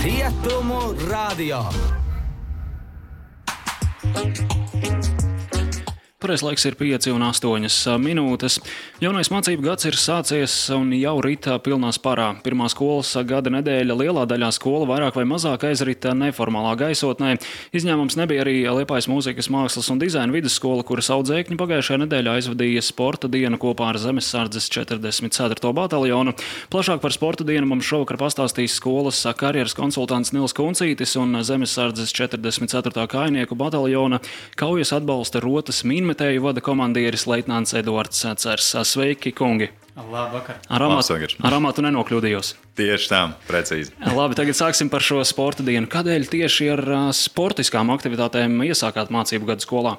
Rietumu radio. Pareiz laiks ir 5:08 minūtes. Jaunais mācību gads ir sācies un jau rita pilnā sparā. Pirmā skolas gada nedēļa lielā daļā skola vairāk vai mazāk aizrita neformālā gaisotnē. Izņēmums nebija arī Liepājas mūzikas, mākslas un dizaina vidusskola, kuras audzēkņi pagājušajā nedēļā aizvadīja sporta dienu kopā ar Zemessardzes 44. bataljonu. Plašāk par sporta dienu mums šovakar pastāstīs skolas karjeras konsultants Nils Kuncītis un Zemessardzes 44. kājnieku bataljona kaujas atbalsta rotas minmetēju vada komandieris leitnants Eduards Cers. Sveiki, kungi! Labvakar! Ar amatu nenokļūdījos. Tieši tā, precīzi. Labi, tagad sāksim par šo sporta dienu. Kādēļ tieši ar sportiskām aktivitātēm iesākāt mācību gadu skolā?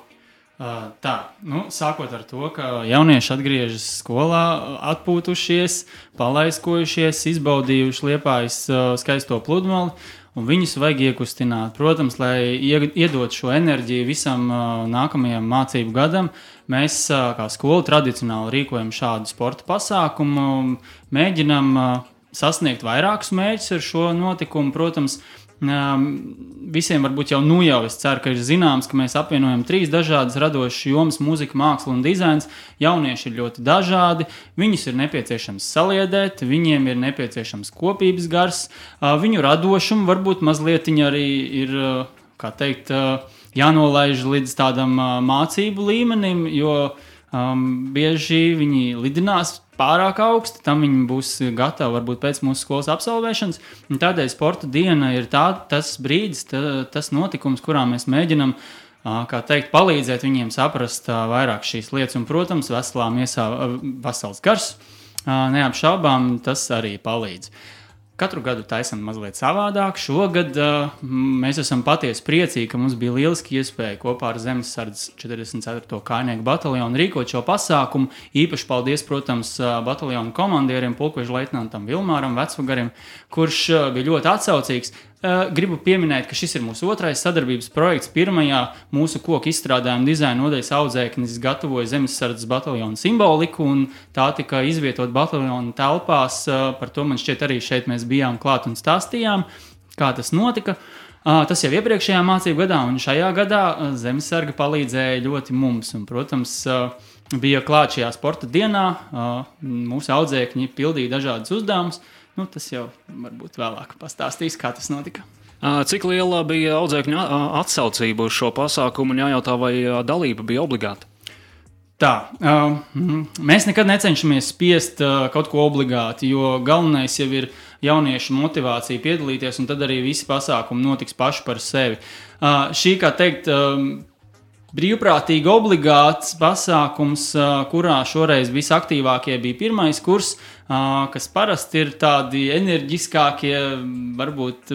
Sākot ar to, ka jaunieši atgriežas skolā, atpūtušies, palaiskojušies, izbaudījuši Liepājas skaisto pludmali, un viņus vajag iekustināt. Protams, lai iedot šo enerģiju visam nākamajam mācību gadam, mēs kā skola tradicionāli rīkojam šādu sporta pasākumu, mēģinam sasniegt vairākus mērķus ar šo notikumu. Protams, visiem varbūt jau es ceru, ka ir zināms, ka mēs apvienojam 3 dažādas radošas jomas - mūzika, māksla un dizains. Jaunieši ir ļoti dažādi, viņus ir nepieciešams saliedēt, viņiem ir nepieciešams kopības gars, viņu radošumu varbūt mazliet arī ir, jānolaiž līdz tādam mācību līmenim, jo bieži viņi lidinās pārāk augsti, tam viņi būs gatavi varbūt pēc mūsu skolas absolvēšanas. Tādēļ sporta diena ir tas brīdis, tas notikums, kurā mēs mēģinam palīdzēt viņiem saprast vairāk šīs lietas. Un, protams, veselā miesā vesels gars, neapšaubām tas arī palīdz. Katru gadu taisam mazliet savādāk. Šogad mēs esam patiesi priecīgi, ka mums bija lieliski iespēja kopā ar Zemessardzes 44. kājnieku bataljonu rīkot šo pasākumu. Īpaši paldies, protams, bataljonu komandieriem, pulkveža leitnantam Vilmāram Vecvagarim, kurš bija ļoti atsaucīgs. Gribu pieminēt, ka šis ir mūsu otrais sadarbības projekts. Pirmajā mūsu koku izstrādājuma dizaina nodaļas audzēknis gatavoja Zemessardzes bataljonu simboliku, un tā tika izvietot bataljonu telpās. Par to man šķiet arī šeit mēs bijām klāt un stāstījām, kā tas notika. Tas jau iepriekšējā mācību gadā, un šajā gadā Zemessarga palīdzēja ļoti mums. Un, protams, bija klāt šajā sporta dienā, mūsu audzēkņi pildīja dažādas uzdevumus. Tas jau varbūt vēlāk pastāstīs, kā tas notika. Cik liela bija audzēkņu atsaucība uz šo pasākumu un jājautā, vai dalība bija obligāta? Mēs nekad necenšamies spiest kaut ko obligāti, jo galvenais jau ir jauniešu motivācija piedalīties, un tad arī visi pasākumi notiks paši par sevi. Šī, brīvprātīgi obligāts pasākums, kurā šoreiz visaktīvākie bija pirmais kurs, kas parasti ir tādi enerģiskākie, varbūt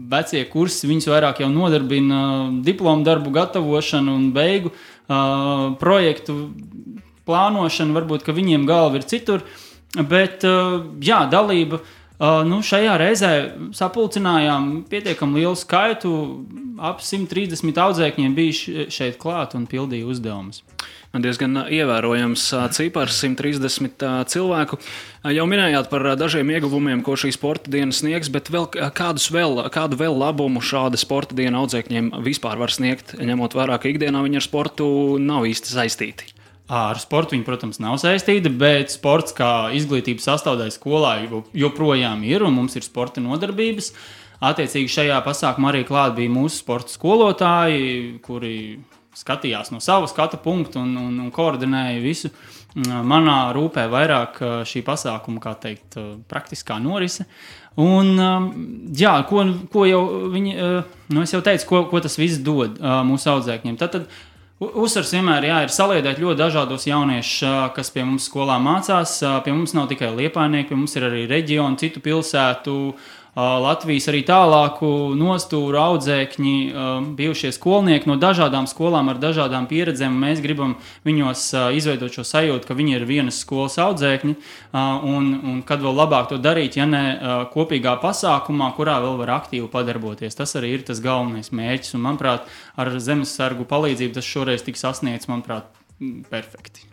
vecie kursi, viņus vairāk jau nodarbina diplomu darbu gatavošanu un beigu projektu plānošanu, varbūt, ka viņiem galva ir citur, bet dalība. Šajā reizē sapulcinājām pietiekam lielu skaitu, ap 130 audzēkņiem bija šeit klāt un pildīja uzdevumus. Diezgan ievērojams cipars, 130 cilvēku. Jau minējāt par dažiem ieguvumiem, ko šī sporta diena sniegs, bet kādu vēl labumu šāda sporta diena audzēkņiem vispār var sniegt, ņemot vērā, ka ikdienā viņi ar sportu nav īsti saistīti? Ar sportu viņi, protams, nav saistīti, bet sports kā izglītības sastāvdaļa skolā joprojām ir, un mums ir sporta nodarbības. Attiecīgi šajā pasākumā arī klāt bija mūsu sporta skolotāji, kuri skatījās no sava skatu punktu un koordinēja visu. Manā rūpē vairāk šī pasākuma, praktiskā norise. Un, ko jau viņi, es jau teicu, ko tas viss dod mūsu audzēkņiem. Tad uzsvars vienmēr ir saliedēt ļoti dažādos jauniešus, kas pie mums skolā mācās. Pie mums nav tikai liepājnieki, pie mums ir arī reģioni, citu pilsētu, Latvijas arī tālāku nostūru audzēkņi, bijušie skolnieki no dažādām skolām ar dažādām pieredzēm. Mēs gribam viņos izveidot šo sajūtu, ka viņi ir vienas skolas audzēkņi, un kad vēl labāk to darīt, ja ne kopīgā pasākumā, kurā vēl var aktīvi padarboties. Tas arī ir tas galvenais mērķis, un, manuprāt, ar Zemessargu palīdzību tas šoreiz tiks sasniegts, manuprāt, perfekti.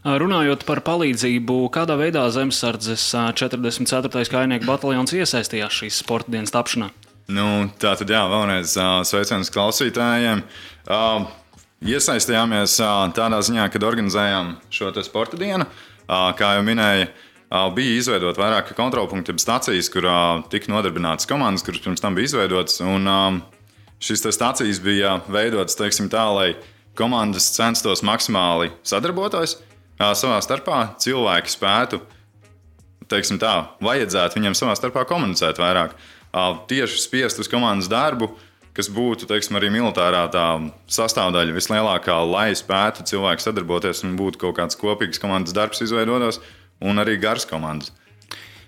Runājot par palīdzību, kādā veidā Zemessardzes 44. kājnieku bataljons iesaistījās šīs sporta dienas tapšanā? Tātad, vēlreiz sveiciens klausītājiem. Iesaistījāmies tādā ziņā, kad organizējām šo te sporta dienu. Kā jau minēja, bija izveidot vairāki kontrolpunkti, stacijas, kur tika nodarbinātas komandas, kuras pirms tam bija izveidotas. Un šīs stacijas bija veidotas, teiksim tā, lai komandas censtos maksimāli sadarboties savā starpā. Cilvēki spētu, teiksim tā, vajadzētu viņiem savā starpā komunicēt vairāk. Tieši spiest uz komandas darbu, kas būtu, teiksim, arī militārā tā sastāvdaļa vislielākā, lai spētu cilvēki sadarboties un būtu kaut kāds kopīgs komandas darbs izveidotos un arī garas komandas.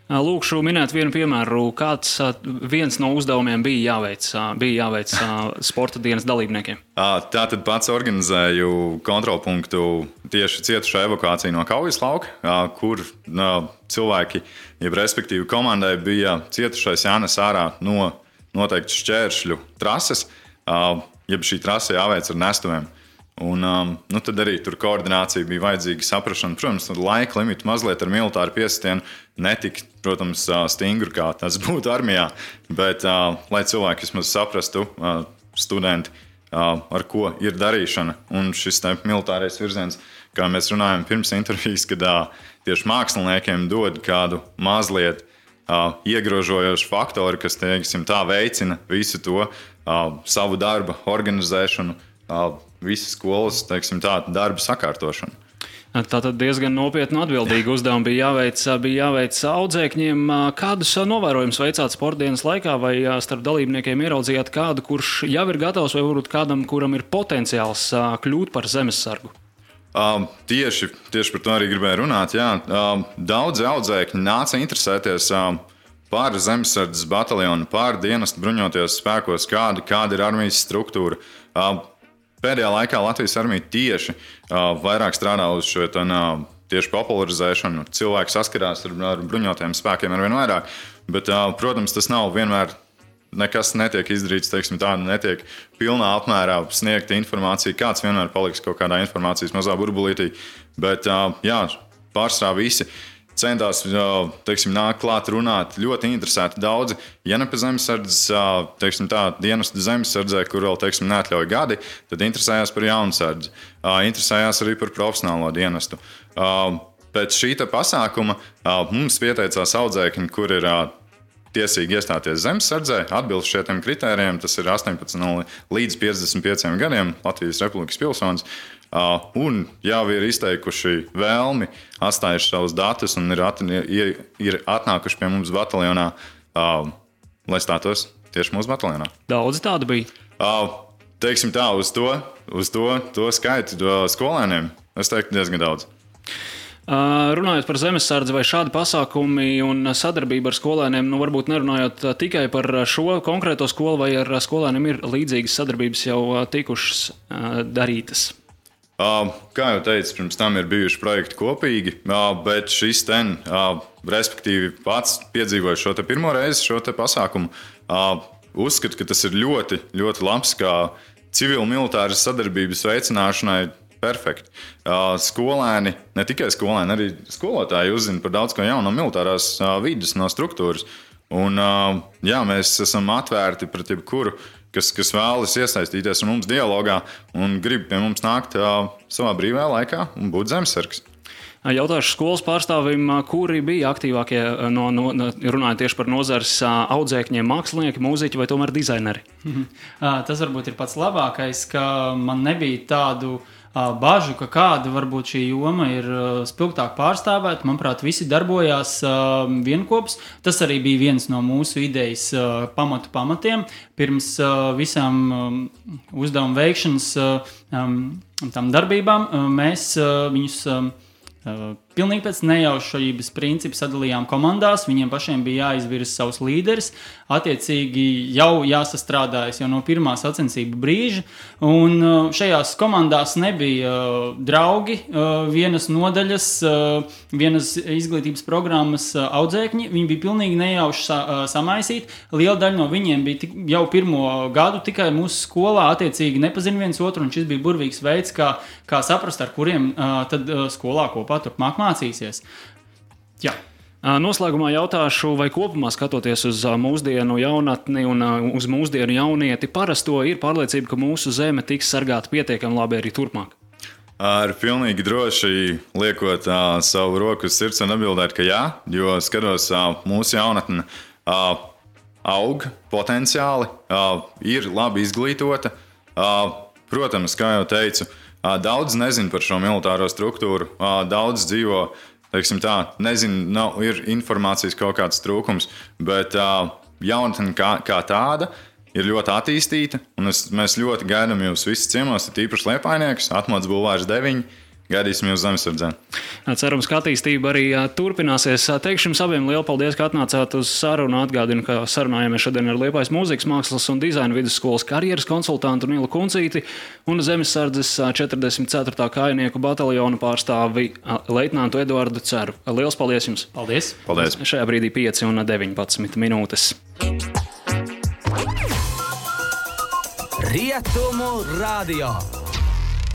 Lūkšu minēt vienu piemēru, kāds viens no uzdevumiem bija jāveic sporta dienas dalībniekiem. Tātad pats organizēju kontrolpunktu tieši cietušo evakuāciju no kaujas lauka, kur cilvēki, jeb respektīvi komandai, bija cietušais jānes ārā no noteikti šķēršļu trases, jeb šī trase jāveic ar nestuviem. Un, tad arī tur koordinācija bija vajadzīga, saprašana. Protams, laika limita mazliet ar militāru piesitienu netika, protams, stingri, kā tas būtu armijā, bet lai cilvēki vismaz saprastu, studenti, ar ko ir darīšana. Un šis militārais virziens, kā mēs runājam pirms intervijas, kad tieši māksliniekiem dod kādu mazliet iegrožojošu faktoru, kas, teiksim, tā veicina visu to savu darba organizēšanu, visas skolas, teiksim, tā darba sakārtošanu. Tātad diezgan nopietni atbildīgi uzdevumi bija jāveic audzēkņiem. Kādus novērojumus veicāt sportdienas laikā, vai starp dalībniekiem ieraudzījāt kādu, kurš jau ir gatavs, vai varbūt kādam, kuram ir potenciāls kļūt par zemessargu? Tieši par to arī gribēju runāt. Jā. Daudzi audzēkņi nāca interesēties par zemesardzes bataljonu, par dienestu bruņotajos spēkos, kāda ir armijas struktūra. Pēdējā laikā Latvijas armija tieši vairāk strādā uz šo tieši popularizēšanu. Cilvēki saskarās ar bruņotajiem spēkiem arvien vairāk, bet, protams, tas nav vienmēr. Nekas netiek izdarīts, teiksim, tā netiek pilnā apmērā sniegta informācija. Kāds vienmēr paliks kaut kādā informācijas mazā burbulītī. Bet, pārsvarā visi centās, teiksim, nāk klāt runāt. Ļoti interesēti daudzi. Ja ne pa zemesardzes, teiksim, tā dienestu zemesardzē, kur vēl, teiksim, neatļauj gadi, tad interesējās par jaunsardzi. Interesējās arī par profesionālo dienestu. Pēc šī pasākuma mums pieteicās audzēkņi, kur ir tiesīgi iestāties zemesardzē, atbilst šiem kritērijiem. Tas ir 18 līdz 55 gadiem Latvijas Republikas pilsonis. Un jau ir izteikuši vēlmi, atstājuši savus datus un ir atnākuši pie mums bataljonā, lai stātos tieši mūsu bataljonā. Daudz tādu bija? Teiksim tā, uz to skaitu skolēniem, es teiktu diezgan daudz. Runājot par zemesardzi, vai šādi pasākumi un sadarbība ar skolēniem, varbūt nerunājot tikai par šo konkrēto skolu, vai ar skolēniem ir līdzīgas sadarbības jau tikušas darītas? Kā jau teicu, pirms tam ir bijuši projekti kopīgi, bet šis respektīvi pats piedzīvoja šo pirmo reizi, šo pasākumu, uzskatu, ka tas ir ļoti, ļoti labs kā civil-militāras sadarbības veicināšanai. Perfekti. Skolēni, ne tikai skolēni, arī skolotāji uzzina par daudz ko jaunu no militārās vides, no struktūras. Un, mēs esam atvērti pret jebkuru, kas vēlas iesaistīties ar mums dialogā un grib pie mums nākt savā brīvajā laikā un būt zemesargs. Jautāšu skolas pārstāvim, kuri bija aktīvākie, runājot tieši par nozares audzēkņiem, mākslinieki, mūziķi vai tomēr dizaineri? Tas varbūt ir pats labākais, ka man nebija tādu bažu, ka kāda varbūt šī joma ir spilgtāk pārstāvēta. Manuprāt, visi darbojās vienkops. Tas arī bija viens no mūsu idejas pamatiem. Pirms visām uzdevumu veikšanas tam darbībām mēs viņus pilnīgi pēc nejaušības principa sadalījām komandās. Viņiem pašiem bija jāizvirza savus līderis. Attiecīgi jau jāsastrādājas jau no pirmā sacensību brīža. Un šajās komandās nebija draugi, vienas nodaļas, vienas izglītības programmas audzēkņi. Viņi bija pilnīgi nejauši samaisīti. Liela daļa no viņiem bija jau pirmo gadu tikai mūsu skolā. Attiecīgi nepazina viens otru, un šis bija burvīgs veids, kā saprast, ar kuriem tad skolā kopā turpmāk mācīsies. Jā. Noslēgumā jautāšu, vai kopumā skatoties uz mūsdienu jaunatni un uz mūsdienu jaunieti, parasto ir pārliecība, ka mūsu zeme tiks sargāta pietiekami labi arī turpmāk? Ar pilnīgi droši liekot savu roku uz sirds un atbildēt, ka jā, jo skatos mūsu jaunatne aug potenciāli, ir labi izglītota. Protams, kā jau teicu, daudz nezin par šo militāro struktūru, daudz dzīvo. Ir informācijas kaut kāds trūkums, bet jaunatne kā tāda ir ļoti attīstīta. Mēs ļoti gaidām jūs visus ciemos, tīpaši Liepājniekus, Atmodas bulvārs 9. Gaidīsim jūs Zemesardzē. Cerams, ka attīstība arī turpināsies. Teikšu jums abiem lielu paldies, ka atnācāt uz sarunu. Atgādinu, ka sarunājāmies šodien ar Liepājas mūzikas, mākslas un dizaina vidusskolas karjeras konsultantu Nilu Kuncīti un Zemesardzes 44. kājnieku bataljonu pārstāvi leitnantu Eduardu Ceru. Liels paldies jums! Paldies! Paldies! Šajā brīdī 5 un 19 minūtes. Rietumu radio.